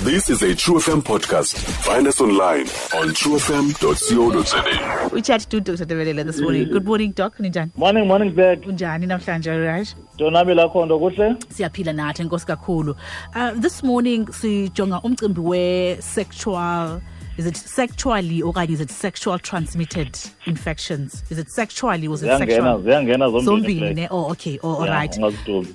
This is a True FM podcast. Find us online on truefm.co.za. We chat to Dr. Develele this morning. Good morning, Doc. Ninjani? Morning, morning, Black. Unjani namhlanje, right? Donabile akho nto kuhle? Siyaphila nathi, enkosi kakhulu. This morning sijonga umcimbi we sexual, is it sexually okanye is it sexual transmitted infections? Is it sexually or is it sexual? Ziyangena zombini. Ne? Oh, okay. Oh, all yeah, right.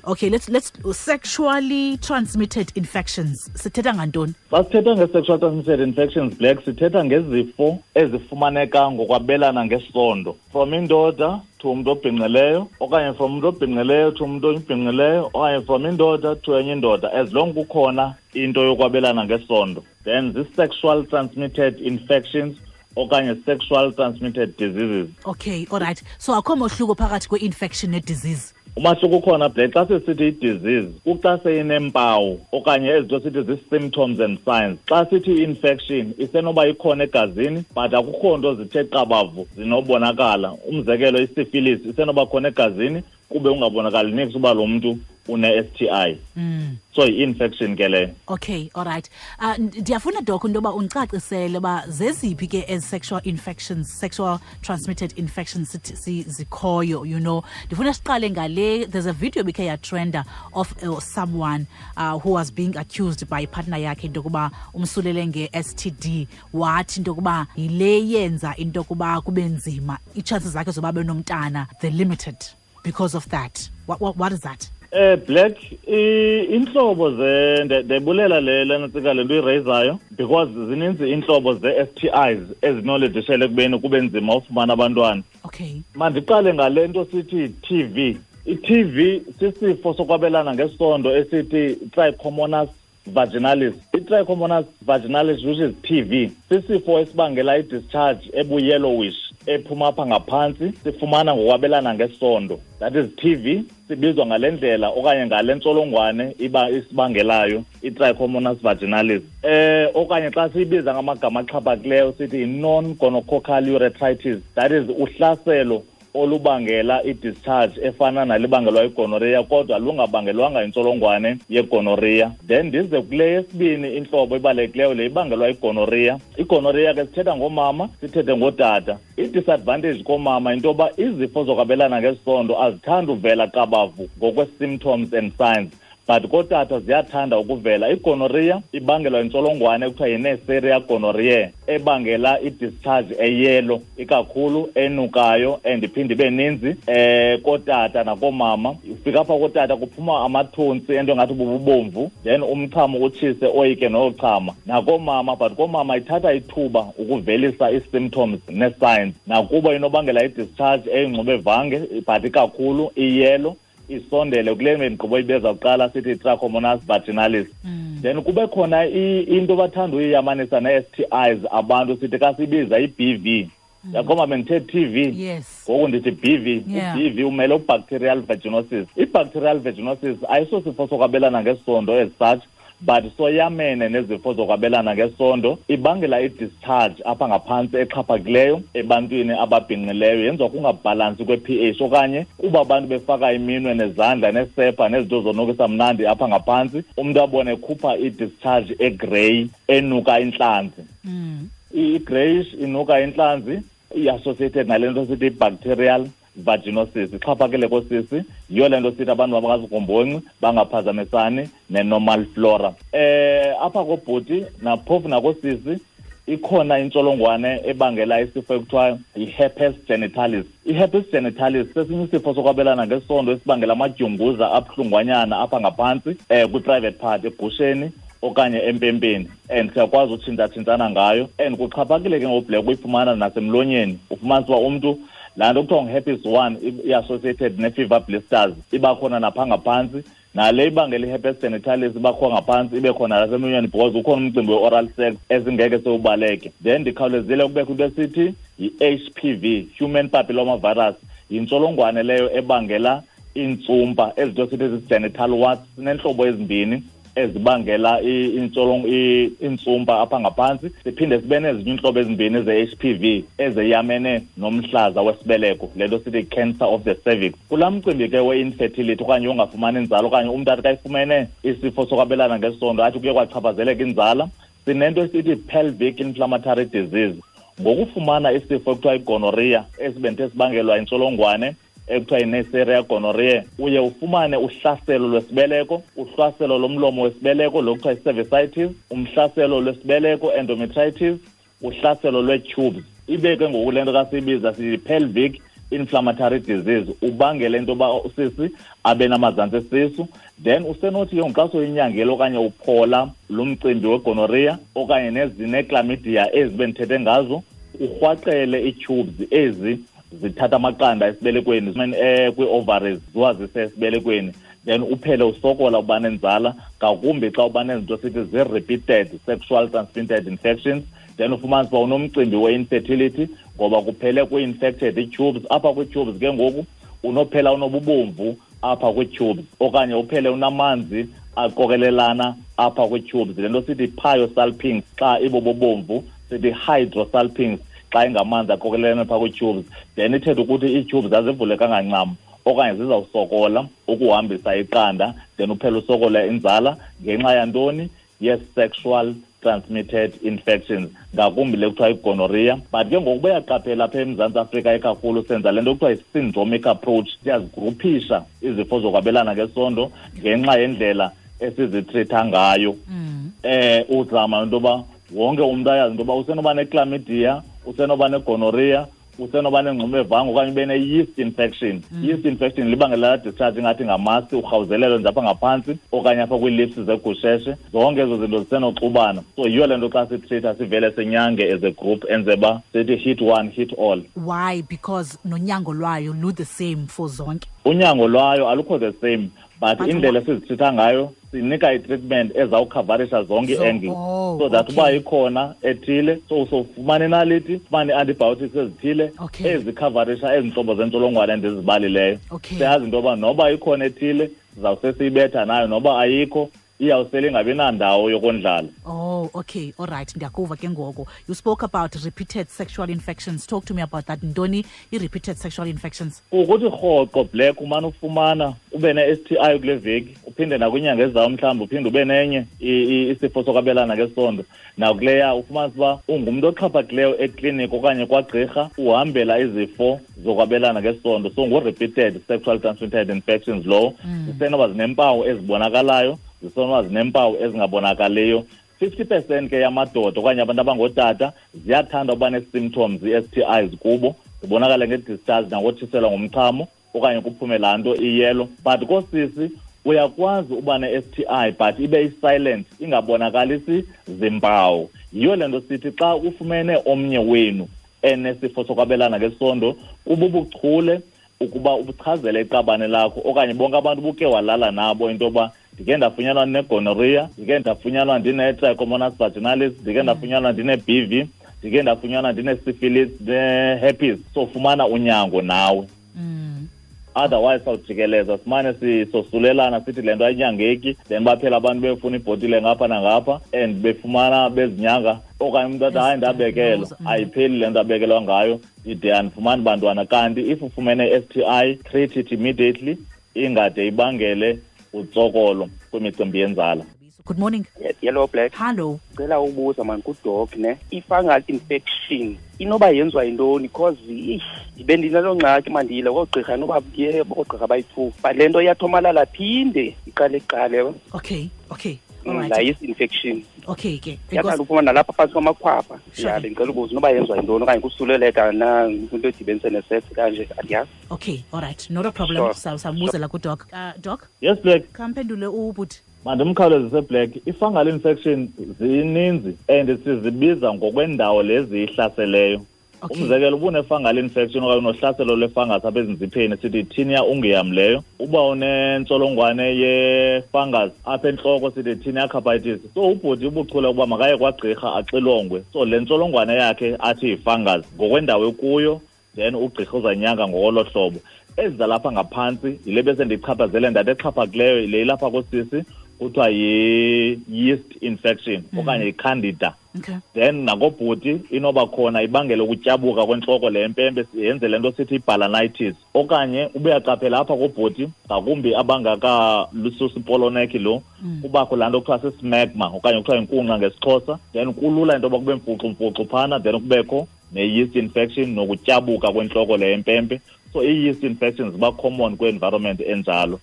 Okay, let's sexually transmitted infections. Sithetha ngantoni? Xa sithetha nge-sexual transmitted infections, Black, sithetha ngezifo ezifumaneka ngokwabelana ngesondo. From indoda to umuntu obhinqileyo, okanye from umuntu obhinqileyo to umuntu obhinqileyo, okanye from indoda to enye indoda, as long kukhona into yokwabelana ngesondo. Then this sexual transmitted infections okanye sexual transmitted diseases. Okay, all right. So akho mohluko phakathi kwe-infection ne-disease? Umahluko ukhona, Black. Xa sisithi i-disease, kuxa seyineempawu okanye ezinto sithi zii-symptoms and signs. Xa sithi i-infection, isenoba ikhona egazini, but akukho nto zithe qabavu zinobonakala. Umzekelo, i-syphilis isenoba khona egazini, kube ungabonakali niks uba lo mntu une-STI. So i-infection ke leyo. Okay, all right. Ndiyafuna, Doc, into yoba undicacisele uba zeziphi ke ezi sexual infections, sexual transmitted infections zikhoyo. Ndifuna siqale ngale, there's a video ebikhe yatrenda of someone who was being accused by partner yakhe into yokuba umsulele nge-STD, wathi into yokuba yile yenza into yokuba kube nzima, ii-chances zakhe zoba benomntana, they're limited because of that. What is that? Black, intlobo ze ndibulela le lena le nto irayizayo, because zininzi intlobo ze-STIs ezinolidishele ekubeni kube nzima ufumana abantwana. Okay. Mandiqale ngale nto sithi TV. I-TV sisifo sokwabelana ngesondo esithi Trichomonas vaginalis. I-Trichomonas vaginalis, which is TV, sisifo esibangela i-discharge ebu-yellowish ephuma apha ngaphantsi, sifumana ngokwabelana ngesondo. That is TV, sibizwa ngale ndlela okanye ngale ntsholongwane iba isibangelayo i-Trichomonas vaginalis. Okanye xa siyibiza ngamagama axhaphakileyo sithi i-non-gonococcal urethritis. That is uhlaselo olubangela i-discharge efana nalibangelwa igonorrhea, kodwa lungabangelwanga intsholongwane yegonorrhea. Then ndize kule yesibini intlobo ibalulekileyo, le ibangelwa igonorrhea. Igonorrhea ke sithetha ngomama, sithethe ngotata. I-disadvantage komama into yoba izifo zokwabelana ngesondo azithandi uvela qabavu ngokwe-symptoms and signs, but kotata ziyathanda ukuvela. Igonorrhea ibangelwa intsholongwane ekuthiwa yi-Neisseria gonorrhoeae, ebangela i-discharge eyelo ikakhulu, enukayo and iphinde ibe ninzi kotata nakoomama. Ufika apha kotata kuphuma amathontsi ento engathi bububomvu, then umchamo utshise oyike nochama. Nakoomama, but koomama ithatha ithuba ukuvelisa ii-symptoms nee-signs. Nakuba inobangela i-discharge eyingxubevange, but ikakhulu iyelo, isondele kule miqobo ibeza kuqala sithi Trichomonas vaginalis. Then kube khona into bathanda uyiyamanisa ne-STIs abantu, sithi xa sibiza i-BV. Yakhomba bendithe TV. Yes. Ngoku ndithi BV. Yeah. U-BV umele u-bacterial vaginosis. I-bacterial vaginosis ayisosifo sokwabelana ngesondo as such, but soyamene nezifo zokwabelana ngesondo. Ibangela i-discharge apha ngaphantsi exhaphakileyo ebantwini ababhinqileyo, yenziwa kungabhalansi kwe-pH okanye kuba abantu befaka iminwe nezandla nesepha nezinto zonukisa mnandi apha ngaphantsi, umntu abone ekhupha i-discharge egrey enuka intlanzi. I-greyish inuka intlanzi i-associated nale nto sithi i-bacterial vaginosis. Ixhaphakile kosisi, yiyo le nto sithi abantu mabangazigomboncI, bangaphazamisani ne-normal flora. Apha kobhuti naphofu nakosisi ikhona intsholongwane ebangela isifo ekuthiwa yi-herpes genitalis. I-herpes genitalis sesinye isifo sokwabelana ngesondo esibangela amadyunguza abuhlungwanyana apha ngaphantsi, kwi-private part, egusheni okanye empempeni, and siyakwazi utshintshatshintshana ngayo. And kuxhaphakile ke ngoBlack uyifumana nasemlonyeni. Ufumanisa uba umntu laa nto kuthiwa ngu-herpes 1 i-associated ne-fever blisters iba khona napha ngaphantsi, nale ibangela i-herpes genitalis iba khona ngaphantsi, ibe khona nasemlonyeni, because ukhona umcimbi we-oral sex esingeke sewubaleke. Then ndikhawulezile kubekho into esithi yi-HPV, human papilloma virus, yintsholongwane leyo ebangela iintsumpa, ezinto sithi zi-genital warts. Sineentlobo ezimbini. ezibangela intsumpa apha ngaphantsi. Siphinde sibe nezinye iintlobo ezimbini ze-HPV ezeyamene nomhlaza wesibeleko, le nto sithi cancer of the cervix. Kulaa mcimbi ke we-infertility okanye ungafumani inzala, okanye umntu athi kayifumene isifo sokwabelana ngesondo athi kuye kwachaphazeleka inzala, sinento esithi pelvic inflammatory disease. Ngokufumana isifo ekuthiwa igonorrhea esibenthe sibangelwa intsholongwane ekuthiwa yiNeisseria gonorrhoeae, uye ufumane uhlaselo lwesibeleko, uhlaselo lomlomo wesibeleko lo kuthiwa yi-cervicitis, umhlaselo lwesibeleko endometritis, uhlaselo lwee-tubes. Ibe ke ngoku le nto kasiyibiza siyi-pelvic inflammatory disease, ubangele into yoba usisi abe namazantsi esisu. Then usenothi ke ngoku xa soyinyangela okanye uphola lo mcimbi wegonorrhea okanye nezinechlamydia ezi bendithethe ngazo, urhwaqele ii-tubes ezi zithatha amaqanda esibelekweni, kwii-ovaries ziwazise esibelekweni, then uphele usokola uba nenzala, ngakumbi xa uba nezinto sithi zii-repeated sexual transmitted infections. Then ufumanise uba unomcimbi we-infertility ngoba kuphele kwi-infected ii-tubes. Apha kwii-tubes ke ngoku unophela unobubomvu apha kwii-tubes, okanye uphele unamanzi aqokelelana apha kwii-tubes, le nto sithi pyosalpinx xa ibobobomvu, sithi hydrosalpinx xa ingamanzi aqokelelana phaa kwii-tubes. Then ithetha ukuthi ii-tubes azivulekanga ncam okanye zizawusokola ukuhambisa iqanda, then uphele usokola inzala ngenxa yantoni? Yes-sexual transmitted infections, ngakumbi le kuthiwa igonorrhea. But ke ngoku bayaqaphela apha eMzantsi Afrika ikakhulu senza le nto kuthiwa yi-syndromic approach, siyazigruphisha izifo zokwabelana ngesondo ngenxa yendlela esizitreatha ngayo. Uzama into yoba wonke umntu ayazi into yoba usenoba nechlamydia, usenoba negonorrhea, usenoba nengxubevange okanye ube ne-yeast infection. Yeast infection libangela laa discharge ingathi ngamasi, urhawuzelelo nje apha ngaphantsi okanye apha kwii-lips zegusheshe. Zonke ezo zinto zisenoxubana. So yiyo le nto xa sitreatha sivele sinyange as a group, enze uba sithi hit one, hit all. Why? Because nonyango lwayo lu the same for zonke. Unyango lwayo alukho the same, but indlela esizitreatha ngayo sinika i-treatment ezawukhavarisha zonke ii-angles, so that uba ikhona ethile, so usofumana inaliti, ufumane ii-antibiotics ezithile ezikhavarisha ezi ntlobo zentsholongwane endizibalileyo. Siyazi into yoba noba ikhona ethile sizawuse siyibetha nayo, noba ayikho iyawusele ingabi nandawo yokondlala. Oh, okay, all right, ndiyakuva ke ngoku. You spoke about repeated sexual infections. Talk to me about that. Ntoni i-repeated sexual infections? Ukuthi rhoqo, Black, umane ufumana ube ne-STI kule veki, uphinde nakwinyanga ezayo mhlawumbi uphinde ube nenye isifo sokwabelana ngesondo. Nakuleya ufumanise uba ungumntu oxhaphakileyo ekliniki okanye kwagqirha, uhambela izifo zokwabelana ngesondo. So ngu-repeated sexual transmitted infections lowo. Zisenoba zineempawu ezibonakalayo, zisenoba zineempawu ezingabonakaliyo. 50% ke yamadoda okanye abantu abangootata ziyathanda uba nee-symptoms ii-STIs kubo, zibonakale nge-discharge nangotshiselwa ngumchamo okanye kuphume laa nto iyelo. But koosisi uyakwazi uba ne-STI but ibe i-silent, ingabonakalisi zimpawu. Yiyo le nto sithi xa ufumene omnye wenu enesifo sokwabelana ngesondo, kububuchule ukuba ubuchazele iqabane lakho okanye bonke abantu buke walala nabo into yoba ndike ndafunyanwa ndinegonorrhea, ndike ndafunyanwa ndine-trichomonas vaginalis, ndike ndafunyanwa ndine-BV, ndike ndafunyanwa ndine-syphilis, ne-herpes. So fumana unyango nawe. Otherwise sawujikeleza simane sisosulelana sithi le nto ayinyangeki, then baphela abantu befuna ibhotile ngapha nangapha and befumana bezinyanga, okanye umntu athi hayi ndabekelwa, ayipheli le nto abekelwa ngayo, ndide andifumani bantwana. Kanti if ufumene i-STI, treat it immediately, ingade ibangele utsokolo kwimicimbi yenzala. Good morning. Hello, Black. Hello. Cela ubuza man kudoc ne. I-fungal infection inoba yenziwa yintoni? Because ndibe ndinaloo ngxaki mandiyile koogqirha, noba ndiye koogqirha bayi-2, but le nto iyathomalala phinde iqale iqale. Okay. All right. La yeast infection. Okay ke. Iyathanda uphuma nalapha phantsi kwamakhwapha. Ya, bendicela ubuza noba yenziwa yintoni okanye kusuleleka na kwinto edibenise nesex kanje, andiyazi. Okay, all right. Not a problem. Sure. Sawubuzela kudoc. Doc? Yes, Black. Khamphendule ubhuti. Mandimkhawulezise, Black. I-fungal infection zininzi and sizibiza ngokwendawo lezi ihlaseleyo. Umzekelo, uba une-fungal infection okanye unohlaselo lwe-fungus apha ezinzipheni, sithi tinea unguium leyo. Uba unentsholongwane ye-fungus apha entloko, sithi tinea capitis. So ubhuti ubuchule ukuba makaye kwagqirha axilongwe. So le ntsholongwane yakhe athi yi-fungus ngokwendawo ekuyo, then ugqirha uzanyanga ngolo hlobo. Ezi zalapha ngaphantsi yile bese ndichaphazele ndathi exhaphakileyo yile ilapha koosisi, kuthiwa yi-yeast infection okanye yi-candida. Then nakobhuti inoba khona ibangele ukutyabuka kwentloko le mpempe, yenze le nto sithi i-balanitis. Okanye ube uyaqaphela apha kobhuti, ngakumbi abangakalususi ipoloneki lo, kubakho laa nto kuthiwa sismegma okanye kuthiwa yinkunqa ngesiXhosa. Then kulula into yoba kube mfuxumfuxu phana, then kubekho ne-yeast infection nokutyabuka kwentloko le empempe. So i-yeast infections ziba common kwi-environment enjalo.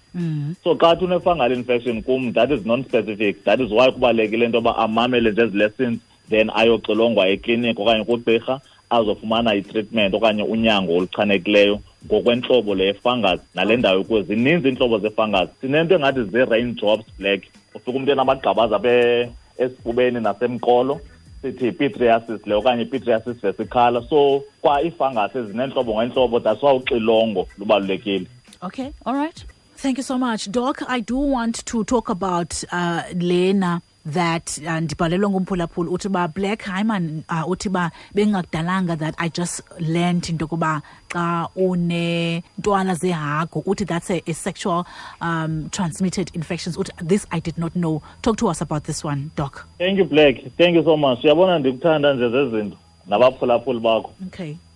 So xa thi une-fungal infection kum, that is non-specific. That is why kubalulekile into yoba amamele nje ezi lessons, then ayoxilongwa ekliniki okanye kugqirha, azofumana i-treatment okanye unyango oluchanekileyo ngokwentlobo le fungus nale ndawo ikuyo. Zininzi iintlobo ze-fungus. Sinento engathi zii-raindrops, Black. Ufika umntu enamagqabaza apha esifubeni nasemqolo, sithi yi-pityriasis le okanye i-pityriasis versicolor. So kwa ii-fungus ezineentlobo ngeentlobo, that's why uxilongo lubalulekile. Okay, all right. Thank you so much, Doc. I do want to talk about Lena that ndibhalelwe ngumphulaphuli, uthi ba Black, hayi man, uthi ba bengakudalanga that I just learned into yokuba xa unentwala zehagu, uthi that's a sexual transmitted infections. Uthi this I did not know. Talk to us about this one, Doc. Thank you, Black. Thank you so much. Uyabona ndikuthanda nje zezinto nabaphulaphuli bakho.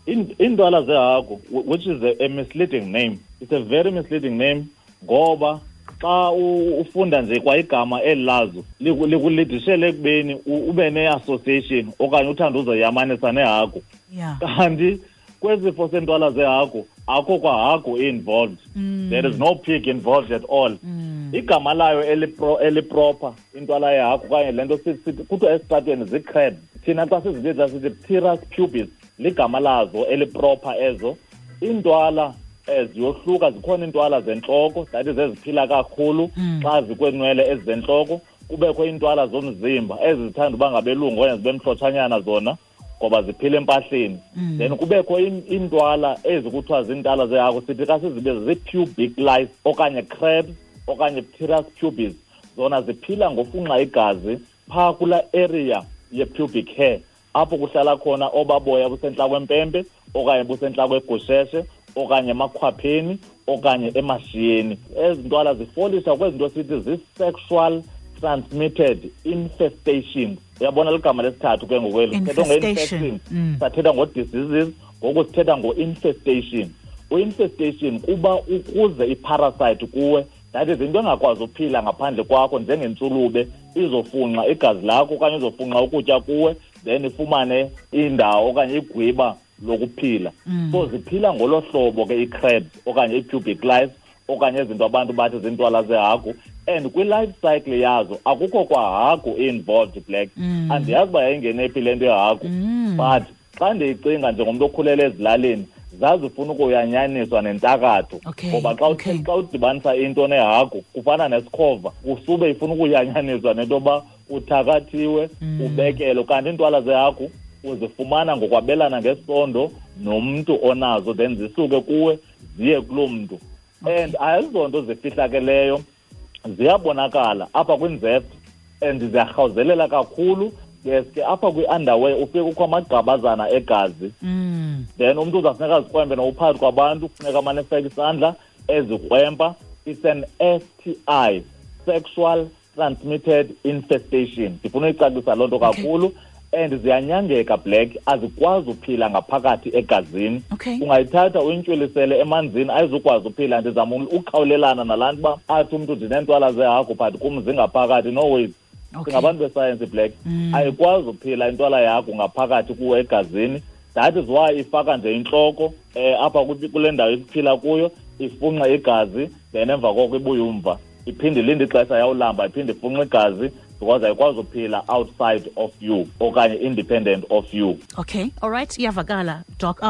Iintwala zehagu, which is a misleading name. It's a very misleading name ngoba xa ufunda nje kwa igama eli lazo likulidishele ekubeni ube ne-association okanye uthande uzoyamanisa nehagu. Kanti kwezifo sentwala zehagu akho kwa hagu involved. There is no pig involved at all. Igama layo eliproper intwala yehagu okanye le nto kuthiwa esitratweni zii-crabs. Thina xa sizibiza sithi Pthirus pubis, ligama lazo eliproper ezo. Iintwala ziyohluka, zikhona iintwala zentloko, that is eziphila kakhulu xa zikweenwele ezizentloko. Kubekho iintwala zomzimba ezi zithanda uba ngabelungu okanye zibe mhlotshanyana zona ngoba ziphila empahleni. Then kubekho iintwala ezi kuthiwa ziintwala zehagu, sithi xa sizibiza zii-pubic lice okanye crabs okanye Pthirus pubis. Zona ziphila ngofunxa igazi phaa kulaa area ye-pubic hair, apho kuhlala khona obaboya busentla kwempempe okanye busentla kwegusheshe okanye emakhwapheni okanye emashiyeni. Ezi ntwala zifolisa kwezi nto sithi zii-sexual transmitted infestations. Uyabona ligama lesithathu ke ngoku eli. Sithetha Infestation. nge-infection, sathetha ngo-diseases, ngoku sithetha ngo-infestation. U-infestation kuba ukuze i-parasite kuwe, that is into engakwazi uphila ngaphandle kwakho, njengentsulube izofunxa igazi lakho okanye izofunxa ukutya kuwe, then ifumane indawo okanye igwiba lokuphila. So ziphila ngolo hlobo ke ii-crabs okanye ii-pubic lice okanye izinto abantu bathi zintwala zehagu. And kwi-life cycle yazo akukho kwa hagu involved, Black. Andiyazi uba yayingene phi le nto yehagu, but xa ndiyicinga njengomntu okhulele ezilalini, zazifuna ukuyanyaniswa nentakatho. Ngoba xa udibanisa into nehagu kufana nesikhova, kusube ifuna ukuyanyaniswa nento yoba uthakathiwe, ubekelwe. Kanti iintwala zehagu uzifumana ngokwabelana ngesondo nomntu onazo, then zisuke kuwe ziye kuloo mntu. And ayizonto zifihlakeleyo, ziyabonakala apha kwinzepho and ziyarhawuzelela kakhulu. Yes ke apha kwi-underwear ufike kukho amagqabazana egazi. Then umntu uzawufuneka azikrwempe nokuphakathi kwabantu, kufuneka amane efake isandla ezikrwempa. It's an STI, sexual transmitted infestation. Ndifuna uyicacisa loo nto kakhulu. And ziyanyangeka, Black, azikwazi uphila ngaphakathi egazini. Ungayithatha uyintywilisele emanzini, ayizukwazi uphila. Ndizama ukhawulelana nalaa nto uba athi umntu ndineentwala zehagu but kum zingaphakathi. No ways. Singabantu besayensi, Black. Ayikwazi uphila intwala yakho ngaphakathi kuwe egazini. That is why ifaka nje intloko apha kule ndawo iphila kuyo, ifunxe igazi, then emva koko ibuye umva. Iphinde ilinde ixesha yawulamba, iphinde ifunxe igazi, because ayikwazi uphila outside of you okanye independent of you. Okay, all right, iyavakala, Doc.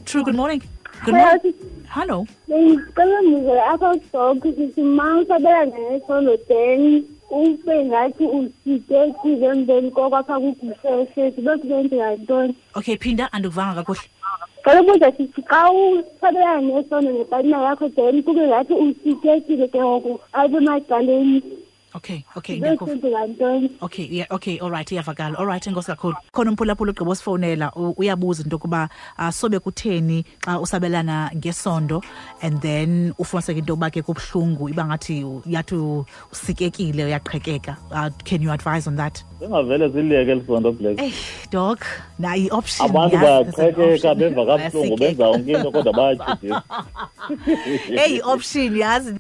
True, good morning. Good Hello. morning. Hello. Bengicela ngizwe apha Doc, sithi ma usabelana ngesondo then ube ngathi usitekile emveni koko apha kugusheshe, sibe kuyenzeka ntoni? Okay, phinda, andikuvanga kakuhle. Cela ubuza sithi xa usabelana ngesondo nepartner yakho then kube ngathi usitekile ke ngoku apha emacaleni. Okay, ndiyakuva. Okay, yeah, okay, all right, iyavakala. All right, enkosi kakhulu. Khona umphulaphula ugqiba usifowunela, uyabuza into yokuba sobe kutheni xa usabelana ngesondo and then ufumaniseke into yokuba ke kubuhlungu, iba ngathi yathi usikekile, uyaqhekeka. Can you advise on that? Singavele siliyeke elisondo, Black. Hey, Doc, nayi i-option. Abantu yazi, there's an bayaqhekeka, option. Beva kabuhlungu, benza yonke into kodwa bayatyhudisa. Hey, i-option, yazi.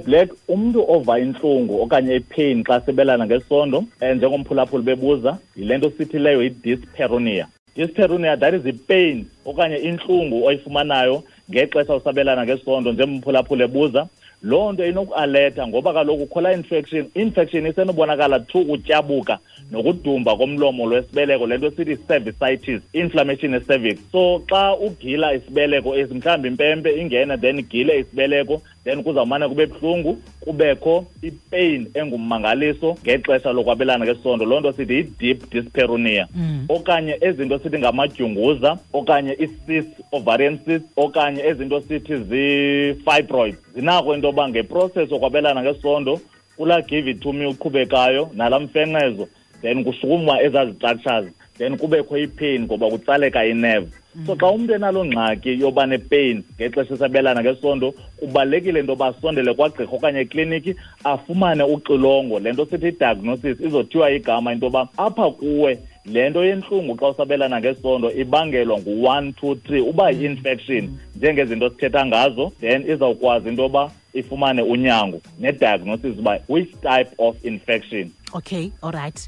Black, umntu ova intlungu okanye ipain xa sebelana ngesondo, njengomphulaphuli bebuza, yile nto sithi leyo yi-dyspareunia. Dyspareunia, that is ipain okanye intlungu oyifumanayo ngexesha usabelana ngesondo, njengomphulaphuli ebuza. Loo nto inokualetha ngoba kaloku kukho laa infection. Infection isenobonakala through ukutyabuka nokudumba komlomo lwesibeleko, le nto sithi cervicitis, inflammation ye-cervix. So xa ugila isibeleko esi, mhlawumbi impempe ingene then igile isibeleko, then kuzawumane kube buhlungu, kubekho ipain engummangaliso ngexesha lokwabelana ngesondo. Loo nto sithi yi-deep dyspareunia. Okanye ezinto sithi ngamadyunguza, okanye i-cyst, ovarian cyst, okanye ezinto sithi zii-fibroids. Zinako into yoba ngeprocess yokwabelana ngesondo, kulaa give it to me uqhubekayo nalaa mfenqezo, then kushukuma ezaa structures, then kubekho ipain ngoba kutsaleka inerve. So xa umntu enaloo ngxaki yoba nepain ngexesha esabelana ngesondo, kubalulekile into yoba asondele kwagqirha okanye ekliniki afumane uxilongo. Le nto sithi i-diagnosis, izothiwa igama into yoba apha kuwe le nto yentlungu xa usabelana ngesondo ibangelwa ngu-1, 2, 3, uba yi-infection njengezinto sithetha ngazo, then izawukwazi into yoba ifumane unyango ne-diagnosis uba which type of infection. Okay, all right.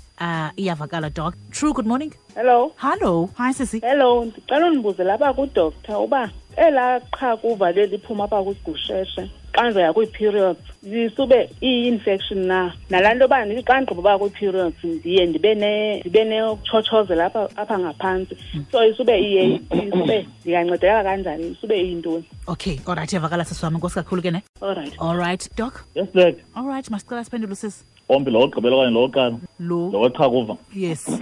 Iyavakala, Doc. True, good morning. Hello. Hello. Hi, sisi. Hello, ndicela undibuze lapha kudoctor uba elaa qhakuva leliphuma apha kwigusheshe xa ndizoya kwii-periods lisube iyi-infection na? Nalaa nto yoba ndithi xa ndigqiba uba kwii-periods ndiye ndibe nokutshotshozela apha ngaphantsi. So isube iye, isube ndingancedeka kanjani? Isube iyintoni? Okay, all right, iyavakala sisi wam. Enkosi kakhulu ke ne. All right. All right, Doc. Yes, Black. All right, masicela siphendule sisi. Ombi lo wokugqibela okanye lo wokuqala? Lo. Lo weqhakuva. Yes.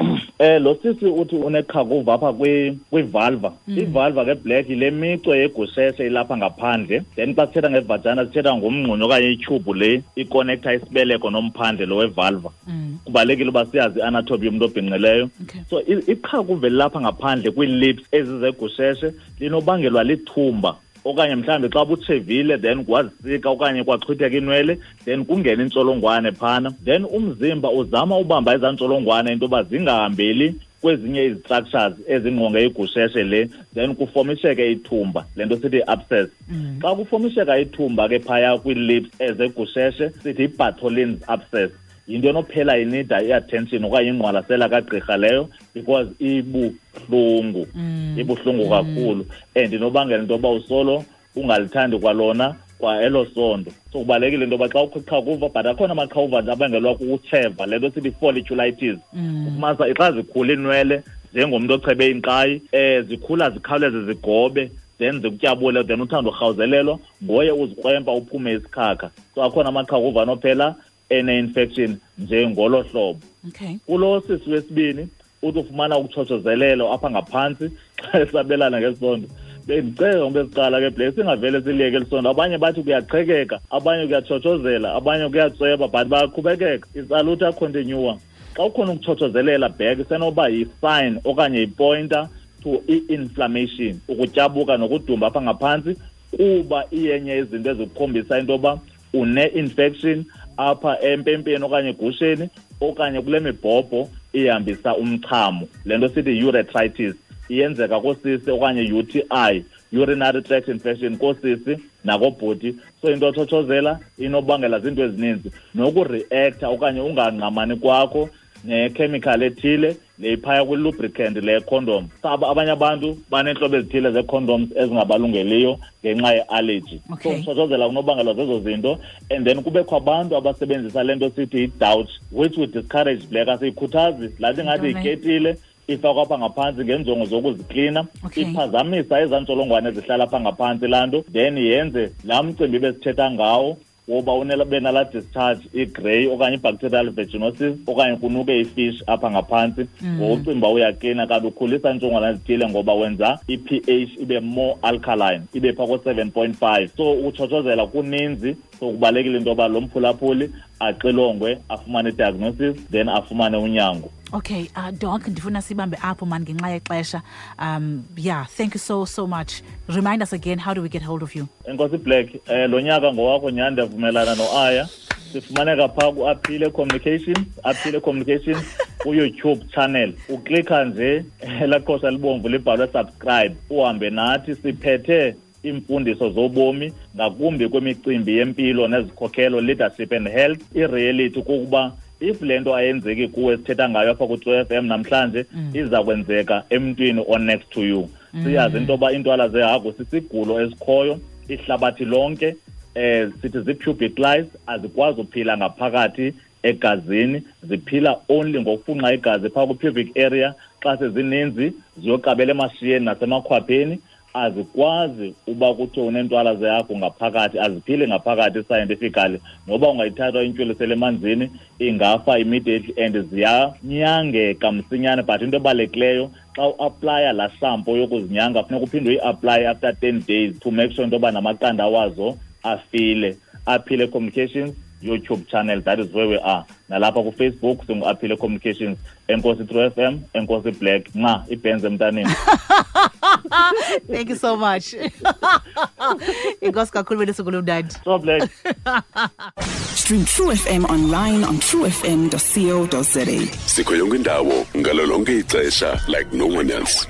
Lo sisi uthi uneqhakuva apha kwivalva. Ivalva ke, Black, yile mico yegusheshe ilapha ngaphandle. Then xa sithetha ngevagina sithetha ngomngxunyo okanye ityhubhu le ikonekta isibeleko nomphandle lo wevalva. Kubalulekile uba siyazi i-anatomy yomntu obhinqileyo. So iqhakuva elilapha ngaphandle kwii-lips ezizegusheshe linobangelwa lithumba, okanye mhlawumbi xa butshevile then kwazisika okanye kwaxhwitheka inwele, then kungena intsholongwane phana, then umzimba uzama ubamba ezaa ntsholongwane into yoba zingahambeli kwezinye izi-structures ezingqonge igusheshe le, then kufomisheke ithumba, le nto sithi i-abscess. Xa kufomisheka ithumba ke phaya kwii-lips ezegusheshe sithi i-Bartholin's abscess. Yinto enophela inida i-attention okanye ingqwalasela kagqirha leyo, because ibuhlungu, ibuhlungu kakhulu, and inobangela into yoba usolo ungalithandi kwalona kwa elo sondo. So kubalulekile into yoba xa ukho iqhakuva, but akhona amaqhakuva nje abangelwa kukutsheva, le nto sithi folliculitis. Ufumanisa xa zikhula iinwele njengomntu ochebe inkqayi, zikhula zikhawuleze zigobe, then zikutyabule, then uthanda urhawuzelelwa ngoye uzikrwempa uphume isikhakha. So akhona amaqhakuva anophela ene-infection njengolo hlobo. Kulo sisi wesibini uthi ufumana ukutshotshozelelo apha ngaphantsi xa esabelana ngesondo. Bendicela ngoba esiqala ke, Black, singavele siliyeke elisondo. Abanye bathi kuyaqhekeka, abanye kuyatshotshozela, abanye kuyatsweba, but bayaqhubekeka. It's a luta continua. Xa ukhona ukutshotshozelela back, isenoba yi-sign okanye yi-pointer to i-inflammation, ukutyabuka nokudumba apha ngaphantsi, kuba iyenye izinto ezikukhombisa into yoba une-infection apha empempeni okanye egusheni okanye kule mibhobho ihambisa umchamo. Le nto sithi urethritis iyenzeka koosisi okanye UTI, urinary tract infection, koosisi nakobhuti. So into otshotshozela inobangela zinto ezininzi, nokureacta okanye ungangqamani kwakho nechemical ethile le iphaya kwi-lubricant le condom. Abanye abantu baneentlobo ezithile zee-condoms ezingabalungeliyo ngenxa ye-allergy. So ukutshotshozela kunobangelwa zezo zinto, and then kubekho abantu abasebenzisa le nto sithi i-douche, which we discourage, Black, asiyikhuthazi. Laa nto ingathi yiketile ifakwa apha ngaphantsi ngeenjongo zokuziklina. Iphazamisa ezaa ntsholongwane ezihlala apha ngaphantsi laa nto, then yenze laa mcimbi besithetha ngawo woba benala discharge i-grey okanye i-bacterial vaginosis okanye kunuke ifish apha ngaphantsi. Ngokucinga uba uyaklina, kanti ukhulisa iintsholongwane ezithile ngoba wenza i-pH ibe more alkaline, ibe phaa ko-7.5. So ukutshotshozela kuninzi. So kubalulekile into yoba lo mphulaphuli axilongwe, afumane i-diagnosis, then afumane unyango. Okay, Doc, ndifuna sibambe apho man ngenxa yexesha. Yeah, thank you so so much. Remind us again, how do we get hold of you? Enkosi Black, lo nyaka ngowakho nyhani, ndiyavumelana noAya. Sifumaneka phaa ku-Aphile Communications, Aphile Communications ku-YouTube channel. Uklikha nje elaa qhosha libomvu libhalwe subscribe, uhambe nathi. Siphethe iimfundiso zobomi ngakumbi kwimicimbi yempilo nezikhokhelo, leadership and health. I-reality kukuba if le nto ayenzeki kuwe sithetha ngayo apha ku-True FM namhlanje, iza kwenzeka emntwini o-next to you. Siyazi into yoba iintwala zehagu sisigulo esikhoyo ihlabathi lonke. Sithi zii-pubic lice, azikwazi uphila ngaphakathi egazini, ziphila only ngokufunxa igazi phaa kwi-pubic area. Xa sezininzi ziyoqabela emashiyeni nasemakhwapheni. Azikwazi uba kuthiwe uneentwala zehagu ngaphakathi, aziphili ngaphakathi scientifically. Noba ungayithatha intywilisele emanzini, ingafa immediately, and ziyanyangeka msinyane. But into ebalulekileyo, xa uaplaya laa shampoo yokuzinyanga, funeka uphinde uyi-aplaye after 10 days to make sure into yoba namaqanda wazo afile. Aphile Communications YouTube channel, that is where we are. Nalapha kuFacebook singu-Aphile Communications. Enkosi True FM, enkosi Black, nca ibhenzi emntaneni. Thank you so much. Inkosi kakhulu, belusuku olumnandi. So Black. Stream True FM online on truefm.co.za. Sikho yonke indawo ngalo lonke ixesha like no one else.